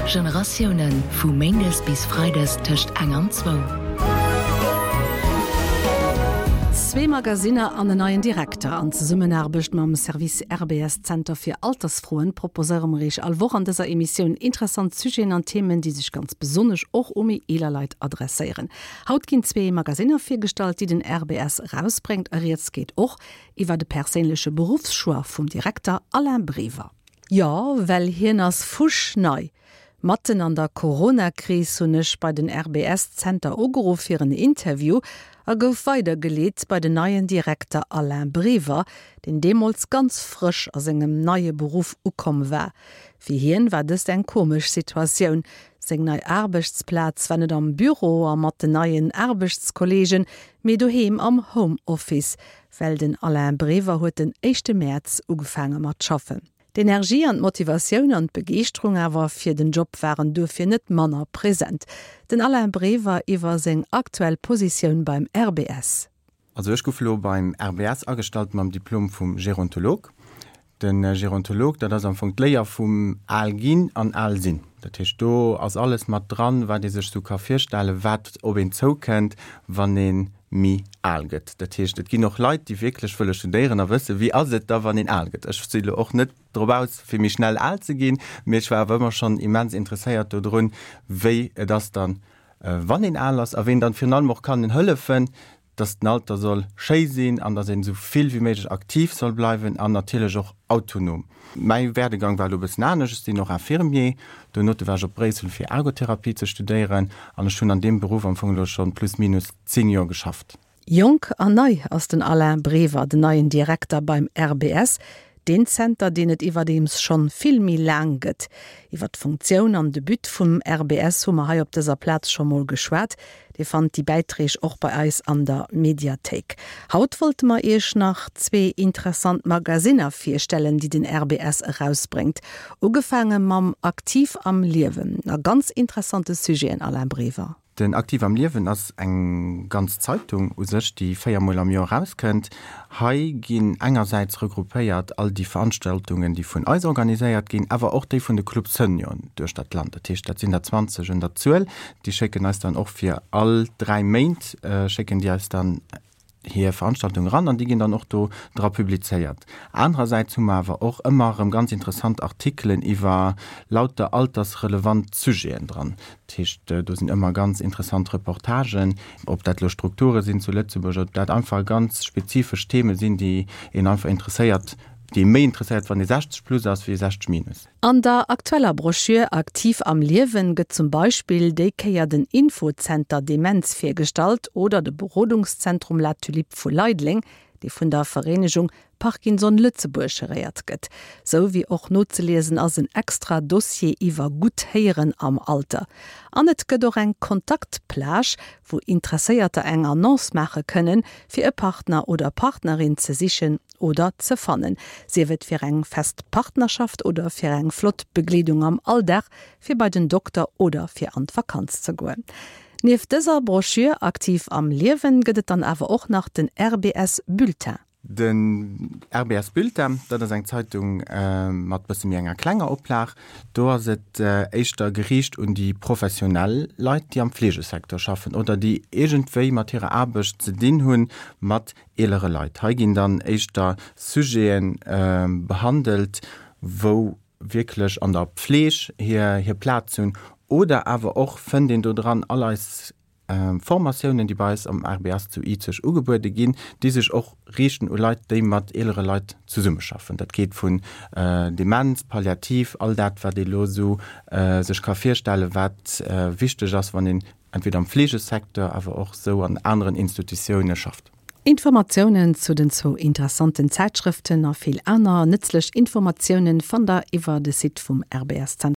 Generatiounen, vu méindes bis freides tëscht eng an zwou. Zwee Magasinner an en neien Direkter. An Zesummenaarbecht mam Service RBS Zenter fir Altersfroen proposéiere mer Iech all Woch an dëser Emissioun interessant Sujeten an Themen, déi sech ganz besonnesch och u méi eeler Leit adresséieren. Haut ginn zwee Magasinner virgestallt, déi den RBS erausbréngt a rieds geet och iwwer de perséinleche Beruffschoix vum Direkter Alain Brever. Jo, well hien ass fuschnei. Matten an der Corona-Kris hunn ech bei den RBS-Zenter ugeruff fir en Interview a gouf weidergeleet bei den neien Direkter Alain Brever, deen deemools ganz frësch a sengem neie Beruff ukomm war. Fir hien war dëst eng komesch Situatioun, Seng nei Aarbechtsplaz war net am Büro a mat den neien Aarbechtskolleegen, mee doheem am Home-Office, well den Alain Brever huet den éischte Mäerz ugefaange mat schaffen. D'Energie an d'Motivatioun an d'Begeeschterung awer fir den Job waren duerfir net manner present. Den Alain Brever iwwer seng aktuell Positioun beim RBS. Also ech gouf elo beim RBS agestallt mam Diplom vum Gerontolog. De Gerontolog, dat ass am Fong d'Léier vum al ginn an al sinn. Dat heescht, do ass alles mat dran, wat ee sech sou ka virstellen, wat op een zoukënnt, wann ee méi al gëtt. Dat heescht, et ginn och Leit, déi wierklech wëlle studéieren a wëssen, wéi ass et da, wann een al gëtt. Ech si lo och net drop aus, fir méi schnell al ze ginn, mee ech war awer ëmmer schonn immens interesséiert dodrun, wéi et ass dann, wann een al ass a ween dann virun allem och kann hëllefen, dass den Alter soll schéi sinn an dass een esou vill wéi méiglech aktiv soll bleiwen an natierlech och autonom. Mäi Werdegang war elo e bëssen anescht, ech sinn och Infirmier, donote war ech op Bréissel fir Ergotherapie ze studéieren an ech hunn an deem Beruff am Fong elo schonn plus minus 10 Joer geschafft. Jonk an nei ass den Alain Brever, den neien Direkter beim RBS, deen Zenter, deen et iwwerdeems schonn vill méi laang gëtt. Iwwer d'Funktioun an de But vum RBS hu mer hei op dëser Plaz scho mol geschwat. Dir fannt déi Bäiträg och bei eis an der Mediathéik. Haut wollte mer iech nach zwee interessant Magasinner virstellen, déi den RBS erausbréngt. Ugefaange mam Aktiv am Liewen a ganz interessante Sujeten, Alain Brever. Den Aktiv am Liewen ass eng ganz Zeitung u sech, déi 4 mol am Joer erauskënnt. Hei ginn engersäits regroupéiert all déi Veranstaltungen, déi vun eis organiséiert ginn, awer och déi vun de Club Senioren duechter d'Land. Dat heescht, dat sinn der 20 un der Zuel. Déi schécken eis dann och fir all 3 Méint schécken déi eis dann hir Veranstaltung eran an déi ginn dann och do dra publizéiert. Anerersäits hu mer awer och ëmmer erëm ganz interessant Artikelen iwwer lauter altersrelevant Sujeten dran. Dat heescht, do sinn ëmmer ganz interessant Reportagen, ob dat elo Strukture sinn zu Lëtzebuerg, ob dat einfach ganz spezifesch Theme sinn, déi een einfach interesséiert, déi ee méi interesséiert, wann ee 60 plus ass wéi 60 minus. An der aktueller Broschür Aktiv am Liewen gëtt zum Beispill déi Kéier den Infozenter Demenz virgestallt oder de Berodungszentrum La Tulipe vu Leideleng, dee vun der Vereenegung Parkinson Lëtzebuerg geréiert gëtt. Sou wéi och nozeliesen ass en extra Dossier iwwer gutt Héieren am Alter. An et gëtt och eng Kontaktplage, wou Interesséierter eng Annonce maache kënnen, fir e Partner oder Partnerin ze sichen oder ze fannen, sief et fir eng fest Partnerschaft oder fir eng flott Begleedung am Alldag, fir bei den Dokter oder fir an d'Vakanz ze goen. Nieft dëser Broschür Aktiv am Liewen gëtt et dann awer och nach den RBS Bulletin. Den RBS Bulletin, dat ass eng Zeitung mat bësse méi enger klenger Oplag. Do ass et éischter geriicht un déi professionell Leit, déi am Fleegesecteur schaffen oder déi iergendwéi mat hirer Aarbecht ze dinn hunn, mat eelere Leit. Hei ginn dann éischter Sujete behandelt, wou wierklech an der Pfleg hir hir Plaz hunn oder awer och fënnt een do dran all eis Formatiounen, déi bei eis am RBS zu Izeg ugebuede ginn, déi sech och riichten u Leit, déi mat eelere Leit zesummeschaffen. Dat geet vun Demenz, Palliativ, all dat, wat ee lo esou sech ka virstellen, wat wichteg ass, wann een entweder am Fleegesecteur, awer och esou an aneren Institutioune schafft. Informatiounen zu den zwou interessanten Zäitschrëften a vill aner nëtzlech Informatiounen fannt der iwwer de Site vum RBS Zentrum.